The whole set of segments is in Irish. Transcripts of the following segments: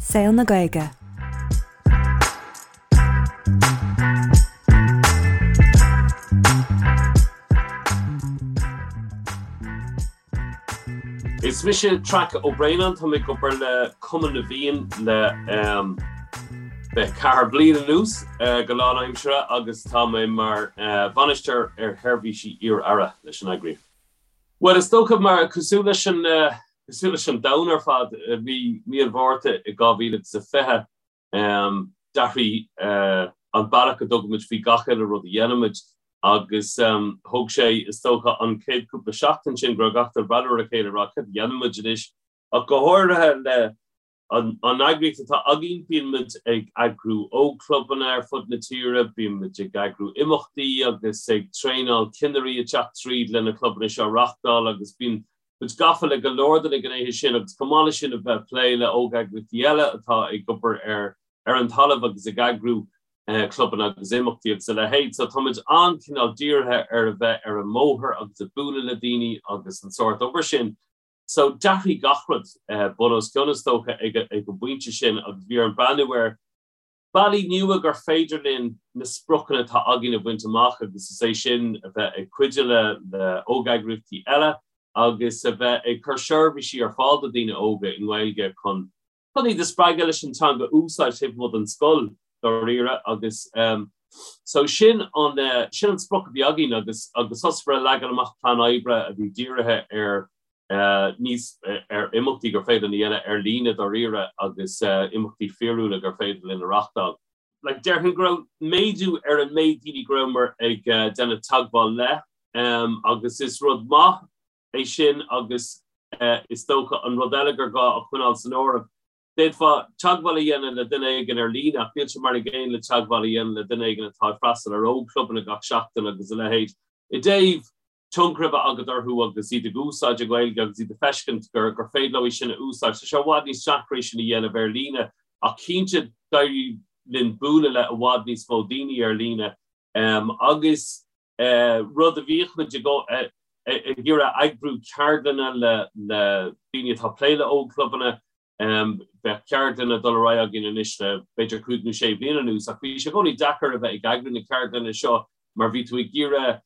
Saol na Gaeilge. Is mise Traic Ó Braonáin, tá mé ag obair le Cumann na bhFiann le 24 bliain anuas go lánaimseartha agus tá mé mar bhainisteoir ar sheirbhísí iar-aire leis an eagraíocht. Bhuel, is dócha mar cosúil leis an cosúil leis an domhan ar fad, bhí mí an Mhárta i 2020 d'athraigh an bealach a dtugaimid faoi gach uile rud a dhéanaimid agus thóg sé, is dócha, an chéad cúpla seachtain sin go raibh gach duine ag breathnú ar a chéile ag rá céard a dhéanfaimid anois ach go háirithe le An eagraíocht atá againn, bíonn muid ag eagrú ógchlubanna ar fud na tíre, bíonn muid ag eagrú imeachtaí agus ag traenáil cinnirí ag teacht tríd le na clubanna seo a reachtáil agus bíonn muid gafa le go leor de na gnéithe sin agus chomh maith leis sin a bheith ag plé le ógeagraíochtaí eile atá ag obair ar ar an talamh agus ag eagrú clubanna agus imeachtaí agus a leithéid. So tá muid an-chineál dírithe ar a bheith ar an mbóthar agus ag bualadh le daoine agus an sórt obair sin. So, d'athraigh gach rud bun os cionn, is dócha, ag an bpointe sin agus bhí orainn breathnú ar bealaí nua gur féidir linn na spriocanna atá againn a bhaint amach agus is é sin a bheith ag cuidiú le le ógeagraíochtaí eile agus a bheith ag cur seirbhísí ar fáil do daoine óga i nGaeilge chun chun iad a spreagadh leis an teanga a úsáid taobh amuigh den scoil dáiríre agus so sin an sin an sprioc a bhí againn agus agus thosaíomar ag leagan amach plean oibre a bhí dírithe ar níos ar imeachtaí gur féidir linn a dhéanamh ar líne dáiríre agus imeachtaí fíorúla gur féidir linn a reachtáil. Like déarfainn go raibh méadú ar an méid daoine go rabhamar ag déanamh teagmháil le agus is rud maith é sin agus is dócha an rud eile gur gá a choinneáil san áireamh, d'fhéadfá teagmháil a dhéanamh le duine éigin ar líne ach níl sé mar an gcéanna le teagmháil a dhéanamh le duine éigin atá ag freastal ar ógchlubanna gach seachtain agus a leithéid. I dtaobh tionchar a bheith agat orthu agus iad ag úsáid an Ghaeilge agus iad ag feiscint gur gur féidir leo í sin a úsáid. Tá sé i bhfad níos deacra é sin a dhéanamh ar líne ach cinnte d'éirigh linn bualadh le i bhfad níos mó daoine ar líne agus rud a bhíodh muid ag iarraidh eagrú ceardlanna le daoine atá ag plé le ógchlubanna. Bheadh ceardlanna ag dul ar aghaidh againn anois le b'fhéidir cúig nó sé bliana anuas ach bhí sé i gcónaí deacair a bheith ag eagrú na ceardlanna seo mar bhí tú ag iarraidh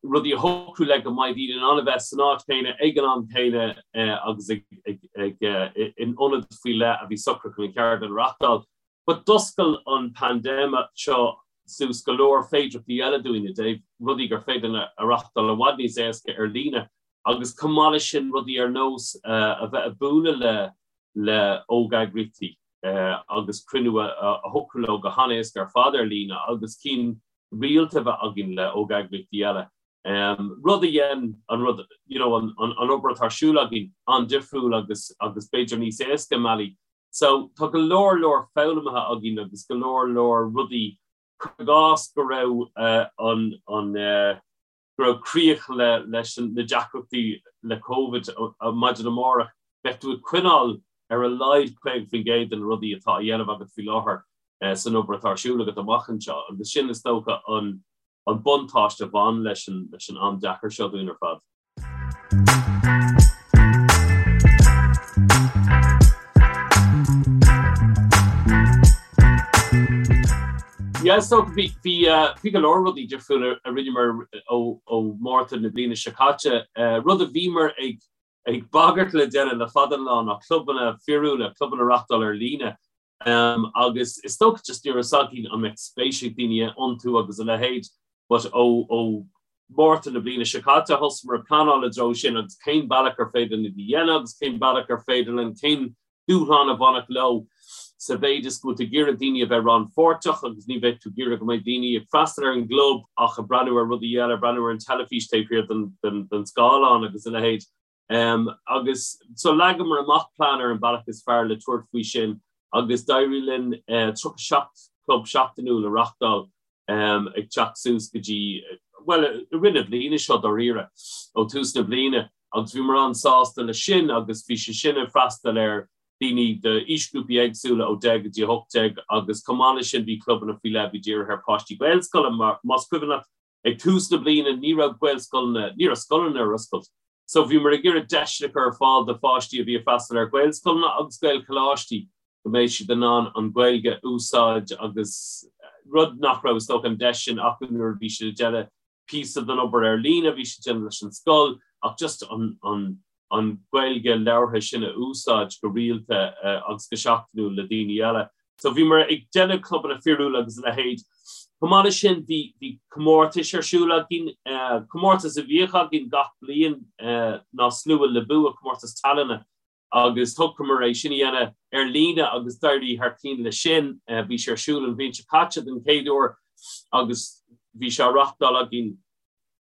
rudaí a shocrú le go mbeidh daoine in ann a bheith san áit chéanna ag an am céanna agus in ionad faoi leith a bhí socraithe chun an cheardlann a reachtáil. But d'oscail an paindéim seo suas go leor féidearthachtaí eile dúinn i dtaobh rudaí gur féidir linn a reachtáil i bhfad níos éasca ar líne agus chomh maith leis sin rudaí ar nós a bheith ag bualadh le le ógeagraíochtaí agus cruinniú a shocrú leo go han-éasca ar fad ar líne agus cinn rialta a bheith againn le ógeagraíochtaí eile. Rud a dhein an rud, you know, an an obair atá ar siúl againn an-difriúil agus agus b'fhéidir níos éasca i mbealaí. So, tá go leor leor foghlamtha againn agus go leor leor rudaí, cuir i gcás go raibh an, an, go raibh críoch le, leis na deacrachtaí le Covid maidin amárach, bheadh tú ag coinneáil ar a laghad 50% de na rudaí atá á dhéanamh agat faoi láthair san obair atá ar siúl agat amach anseo agus sin is dócha an, an buntáiste a bhain leis an, leis an am deacair seo dúinn ar fad. Yeah, so bhí bhí bhí go leor rudaí difriúla a rinneamar ó ó Márta na bliana seo caite. Rud a bhíomar ag ag bagairt le déanamh le fada an lá ná clubanna fíorúla, clubanna a reachtáil ar líne. Agus is dócha just ní raibh fhios againn an mbeadh spéis ag daoine iontu agus a leithéid but ó ó Márta na bliana seo caite thosaíomar ag pleanáil i dtreo sin agus cén bealach ar féidir linn iad a dhéanamh agus cén bealach ar féidir linn, cén dúshlán a bhainfeadh leo sa mhéid is go bhfuil tú ag iarraidh daoine a bheith rannpháirteach agus ní bheidh tú ag iarraidh go mbeidh daoine ag freastal ar an gclub ach ag breathnú ar rudaí eile, ag breathnú ar an teilifís taobh thiar den den den scáileán agus a leithéid. Agus so leagamar amach plean ar an bealach is fearr le tabhairt faoi sin agus d'éirigh linn 37 club seachtainiúil a reachtáil ag teacht suas go dtí, bhuel, i rith na bliana seo dáiríre, ó tús na bliana agus bhíomar an-sásta leis sin agus bhí sé sin ag freastal ar daoine d'aoisghrúpaí éagsúla ó 10 go dtí 18 agus chomh maith leis sin bhí clubanna faoi leith a bhí dírithe ar pháistí Gaelscoile mar más cuimhin leat Ag tús na bliana ní raibh Gaelscoileanna, ní raibh scoileanna ar oscailt. So bhíomar ag iarraidh deiseanna a chur ar fáil do pháistí a bhí ag freastal ar Ghaelscoileanna agus Gaelcholáistí. Go mbeidh siad in ann an Ghaeilge a úsáid agus rud nach raibh is dócha an deis sin acu nuair a bhí siad ag déanamh píosa den obair ar líne, bhí siad ag déanamh leis an scoil ach just an an an Ghaeilge labhartha sin a úsáid go rialta agus go seachtainiúil le daoine eile. So bhíomar ag déanamh clubanna fíorúla agus a leithéid. Chomh maith leis sin bhí bhí comórtais ar siúl againn, comórtas a bhíodh againn gach bliain ná Slua le Bua, comórtas tallainne agus shocraíomar é sin a dhéanamh ar líne agus d'éirigh thar cinn leis sin. Bhí sé ar siúl an bhliain seo caite den chéad uair agus bhí sé á reachtáil againn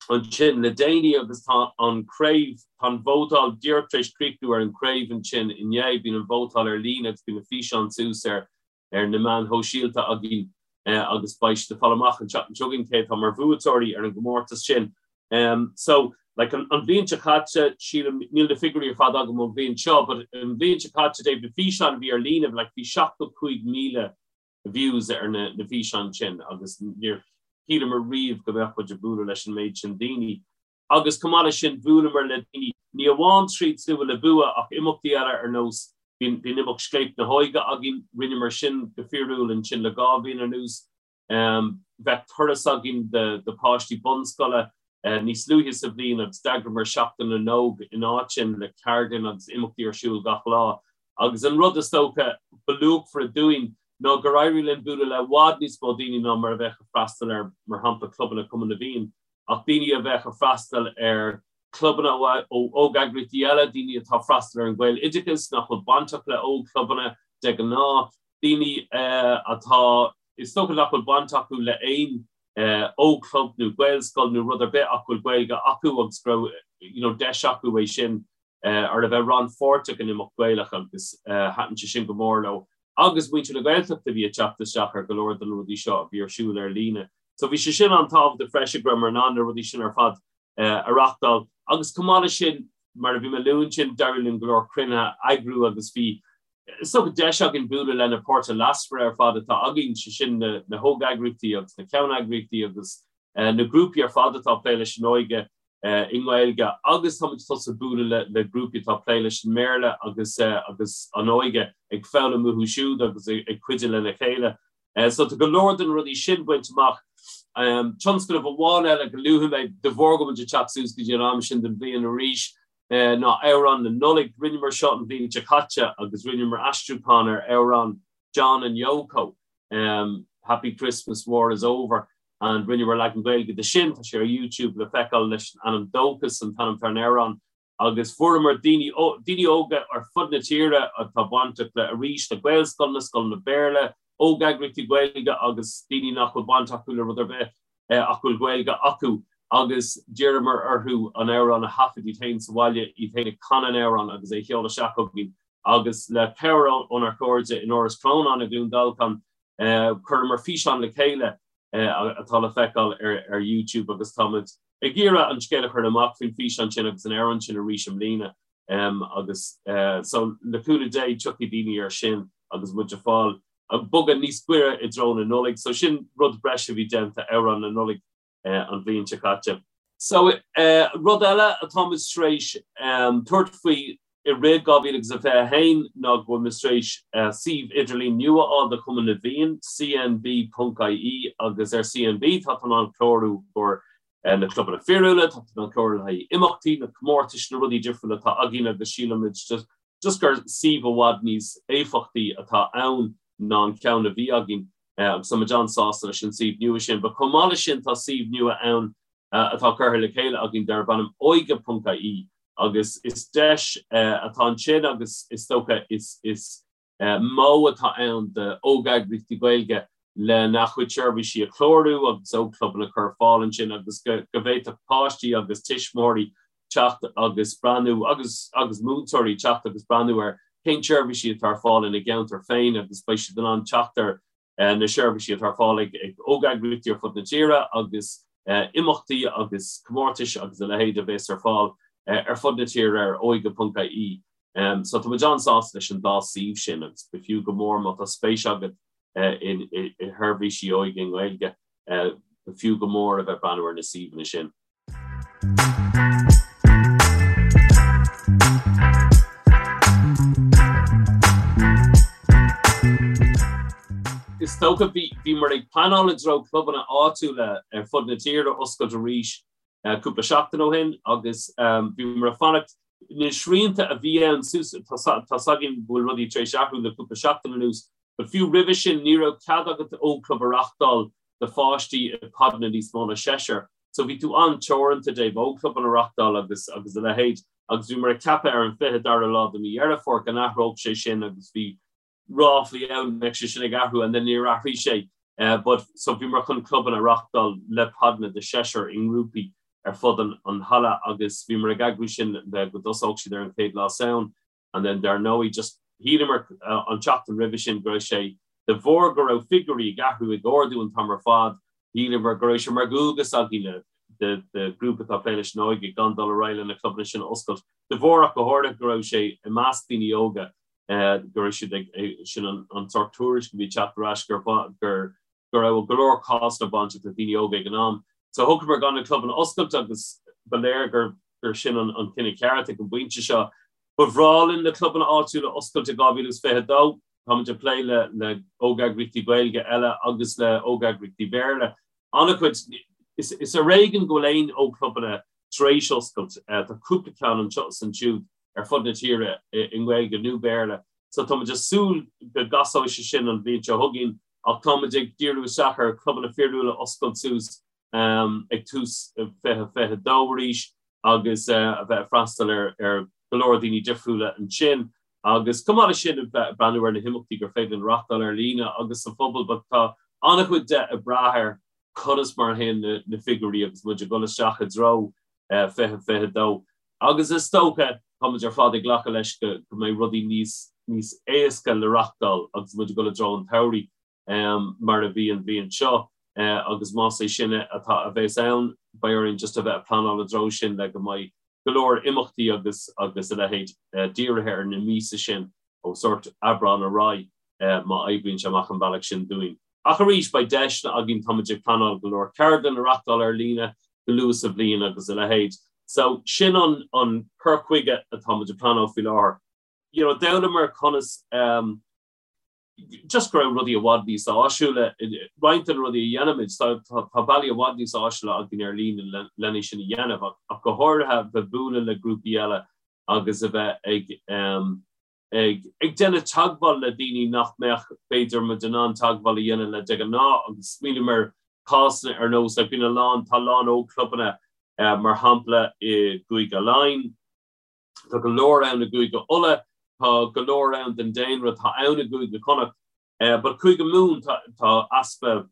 ansin le déanaí agus tá an craobh, tá an vótáil díreach tar éis críochnú ar an craobh ansin inné. Bíonn an vótáil ar líne agus bíonn na físeáin suas ar ar na meáin shóisialta againn agus beidh siad ag fáil amach an tseachtain seo chugainn cé atá mar bhuaiteoirí ar an gcomórtas sin. So, like, an bhliain seo caite, sílim, níl na figiúirí ar fad agam ón bhliain seo, but an bhliain seo caite, Dave, na físeáin a bhí ar líne, like, bhí 75,000 views ar na na físeáin sin agus níor shíleamar riamh go mbeadh muid ag bualadh leis an méid sin daoine. Agus chomh maith leis sin, bhuaileamar le daoine, ní amháin tríd Slua le Bua ach imeachtaí eile ar nós, bhí an imeacht Scléip na hÓige againn, rinneamar sin go fíorúil ansin le 2 bhliain anuas. Bheadh turas againn do pháistí bunscoile níos luaithe sa bhliain agus d'eagraíomar Seachtain na nÓg in áit sin le ceardlanna agus imeachtaí ar siúl gach lá. Agus an rud is dócha ba luachmhaire dúinn ná gur éirigh linn bualadh le i bhfad níos mó daoine ná mar a bheadh ag freastal ar, mar shampla, clubanna Chumann na bhFiann. Ach daoine a bheadh ag freastal ar chlubanna ó óg-eagraíochtaí eile, daoine atá ag freastal ar an Ghaeloideachas nach bhfuil bainteach le óg-chlubanna de ghnáth, daoine atá, is dócha nach bhfuil baint acu le aon óg-chlub nó Gaelscoil nó rud ar bith ach go bhfuil Gaeilge acu agus go raibh you know deis acu é sin ar a bheith rannpháirteach in imeacht Gaelach agus thaitin sé sin go mór leo. Agus muintir na Gaeltachta a bhí ag teacht isteach ar go leor de na rudaí seo a bhí ar siúl ar líne. So bhí sé sin an-tábhachtach freisin go rabhamar in ann na rudaí sin ar fad a reachtáil. Agus chomh maith leis sin, mar a bhí mé ag lua ansin, d'éirigh linn go leor cruinnithe a eagrú agus bhí is dócha deis againn bualadh le na páirtithe leasmhara ar fad atá againn, sé sin na hóg-eagraíochtaí agus na ceanneagraíochtaí agus na grúpaí ar fad atá ag plé leis an óige i nGaeilge agus táimid tosaithe bualadh le grúpaí atá ag plé leis an mBéarla agus agus an óige ag foghlaim uathu siúd agus ag cuidiú lena chéile. So tá go leor de na rudaí sin bainte amach. Tionscnamh amháin eile go luafaidh mé, de bharr go bhfuil muid ag teacht suas go dtí an am sin den bhliain arís, ná Amhrán na Nollag. Rinneamar seo an bhliain seo caite agus rinneamar aistriúchán ar amhrán John and Yoko, Happy Christmas, War is Over, and rinneamar leagan Gaeilge de sin. Tá sé ar YouTube le feiceáil leis an ainm Dóchas an t-ainm atá ar an amhrán. Agus fuaireamar daoine, daoine óga ar fud na tíre atá bainteach le, arís, le Gaelscoileanna, scoileanna Béarla, óg-eagraíochtaí Gaeilge agus daoine nach bhfuil baint acu le rud ar bith ach go bhfuil Gaeilge acu agus d'iarramar orthu an amhrán a thaifead iad féin sa bhaile, iad féin ag canadh an amhráin agus é a sheoladh isteach chugainn agus le cabhair ónár gcairde in Áras Chrónáin i gCluain Dolcáin, chuireamar físeán le chéile atá le feiceáil ar YouTube agus táimid ag iarraidh an scéal a chur amach faoin bhfíseán sin agus an amhrán sin arís i mbliana agus so le cúnamh Dé tiocfaidh daoine air sin agus muid ag fáil ag bogadh níos gaire i dtreo na Nollag. So sin rud breise a bhí déanta, Amhrán na Nollag an bhliain seo caite. So rud eile atáimid tar éis tabhairt faoi i rith 2021 ná go bhfuil muid tar éis suíomh idirlín nua a fháil do Chumann na bhFiann, cnb.ie, agus ar CNB tá tú in ann clárú i gcomhair na clubanna fíorúla, tá tú in ann clárú le haghaidh imeachtaí, na comórtais, na rudaí difriúla atá againn agus sílimid just gur suíomh i bhfad níos éifeachtaí atá ann ná an ceann a bhí againn agus tá muid an-sásta leis an suíomh nua sin. But chomh maith leis sin tá suíomh nua ann atá curtha le chéile againn darb ainm óige.ie agus is deis atá ansin agus is dócha is is modh atá ann d'óg-eagraíochtaí Gaeilge lena gcuid seirbhísí a chlárú agus ógchlubanna a chur ar fáil ansin agus go bhféadfadh páistí agus tuismitheoirí teacht agus breathnú agus agus múinteoirí teacht agus breathnú ar cén seirbhísí atá ar fáil ina gceantar féin agus beidh siad in ann teacht ar na seirbhísí atá ar fáil ag óg-eagraíochtaí ar fud na tíre agus imeachtaí agus comórtais agus a leithéid a bheas ar fáil ar fud na tíre ar óige.ie. So tá muid an-sásta leis an dá suíomh sin agus b'fhiú go mór má tá spéis agat i sheirbhísí óige i nGaeilge, b'fhiú go mór a bheith breathnú ar na suíomhanna sin. is dócha bhí bhíomar ag pleanáil i dtreo clubanna áitiúla ar fud na tíre a oscailt arís cúpla seachtain ó shin agus bhíomar ag fanacht na srianta a bhí ann suas tá 's againn go bhfuil rudaí tar éis athrú le cúpla seachtain anuas but fiú roimhe sin ní raibh cead agat ógchlub a reachtáil do pháistí i podanna níos mó ná seisear. So bhí tú an-teoranta i dtaobh ógchlubanna a reachtáil agus agus a leithéid agus bhíomar ag ceapadh ar an 22ú lá de mhí Dheireadh Fómhair go n-athródh sé sin agus bhí ráflaí ann go mbeadh sé sin ag athrú and then níor athraigh sé but so bhíomar chun clubanna a reachtáil le podanna de sheisear i ngrúpaí ar fud an an halla agus bhíomar ag eagrú sin le go dtosódh siad ar an chéad lá Samhain. And then dar ndóigh just shíleamar an tseachtain roimhe sin go raibh sé, de bharr go raibh figiúirí ag athrú, ag ardú an t-am ar fad, shíleamar go raibh sé mar dhualgas againne de ghrúpa atá ag plé leis an óige gan dul ar aghaidh le na clubanna sin a oscailt. De bharr ach go háirithe go raibh sé i measc daoine óga go raibh siad ag, sin an sórt tuairisc a bhí ag teacht ar ais gur gur go raibh go leor cásanna bainteach le daoine óga ag an am. So shocraíomar gan na clubanna a oscailt agus ba léir gur gur sin an an cinneadh ceart ag an bpointe seo. Ba bhreá linn na clubanna áitiúla a oscailt i 2022. Táimid ag plé le le ógeagraíochtaí Gaeilge eile agus le ógeagraíochtaí Béarla. An-chuid, is is ar éigean go bhfuil aon ógchlubanna tar éis oscailt. Tá cúpla ceann anseo is ansiúd ar fud na tíre i nGaeilge nó Béarla. So táimid ag súil go gcasóidh sé sin an bhliain seo chugainn ach táimid ag díriú isteach ar chlubanna fíorúla a oscailt suas ag tús 2022 arís agus a bheith ag freastal ar go leor daoine difriúla ansin agus chomh maith leis sin a bheith ag breathnú ar na himeachtaí gur féidir linn reachtáil ar líne agus sa phobal but tá an-chuid de ag brath ar conas mar a théann na figiúirí agus muid ag dul isteach i dtreo 2022 agus is dócha táimid ar fad ag glacadh leis go mbeidh rudaí níos níos éasca le reachtáil agus muid ag dul i dtreo an tsamhraidh mar a bhí an bhliain seo agus más é sin atá a bheas ann beidh orainn just a bheith ag pleanáil i dtreo sin le go mbeidh go leor imeachtaí agus agus a leithéid dírithe ar na míosa sin ó sórt Aibreán ar aghaidh má oibríonn sé amach an bealach sin dúinn. Ach arís, beidh deiseanna againn, táimid ag pleanáil go leor ceardlann a reachtáil ar líne go luath sa bhliain agus a leithéid. So, sin an an cur chuige atáimid ag pleanáil faoi láthair. You know, d'fhoghlaimeamar conas um, just go raibh rudaí i bhfad níos áisiúla, roinnt de na rudaí a dhéanaimid, tá tá bealaí i bhfad níos áisiúla againn ar líne lena sin a dhéanamh ach ach go háirithe bheith bualadh le grúpaí eile agus a bheith ag um, ag ag déanamh teagmháil le daoine nach mbeadh b'fhéidir muid in ann teagmháil a dhéanamh le de ghnáth agus smaoiním ar cásanna ar nós like bíonn a lán tá a lán ógchlubanna mar shampla i gCúige Laighean, tá go leor ann i gCúige Uladh, tá go leor ann den daonra atá ann i gCúige Chonnacht but Cúige Mumhan tá tá easpa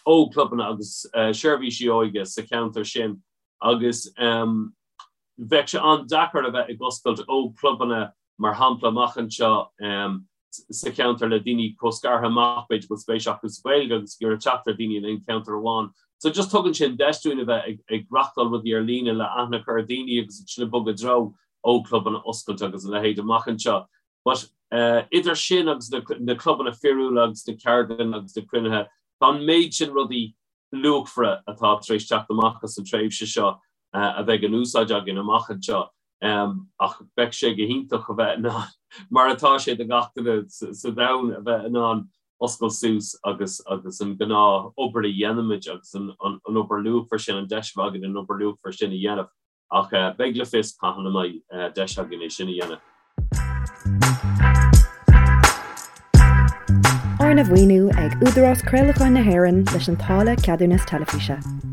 ógchlubanna agus seirbhísí óige sa cheantar sin agus bheadh sé an-deacair a bheith ag oscailt ógchlubanna mar shampla amach anseo sa cheantar le daoine chomh scartha amach b'fhéidir go bhfuil spéis acu sa Ghaeilge agus ag iarraidh teacht ar daoine in aon cheantar amháin. So just tugann sin deis dúinn a bheith ag reachtáil rudaí ar líne le aithne a chur ar daoine agus ansin ag bogadh i dtreo ógchlubanna oscailt agus a leithéid amach anseo. But idir sin agus na clubanna fíorúla agus na ceardlanna agus na cruinnithe, tá an méid sin rudaí luachmhara atá tar éis teacht amach as an tréimhse seo a bheidh in úsáid againn amach anseo. Ach bheadh sé go hiontach a bheith in ann, mar atá sé do gach duine sa domhan, a bheith in ann oscailt suas agus agus an gnáth obair a dhéanaimid agus an obair luachmhar sin, an deis a bheith againn an obair luachmhar sin a dhéanamh. Ach beidh le fios cathain a mbeidh deis againn é sin a dhéanamh. Arna mhaoiniú ag Údarás Craolacháin na hÉireann leis an táille Ceadúnas Teilifíse.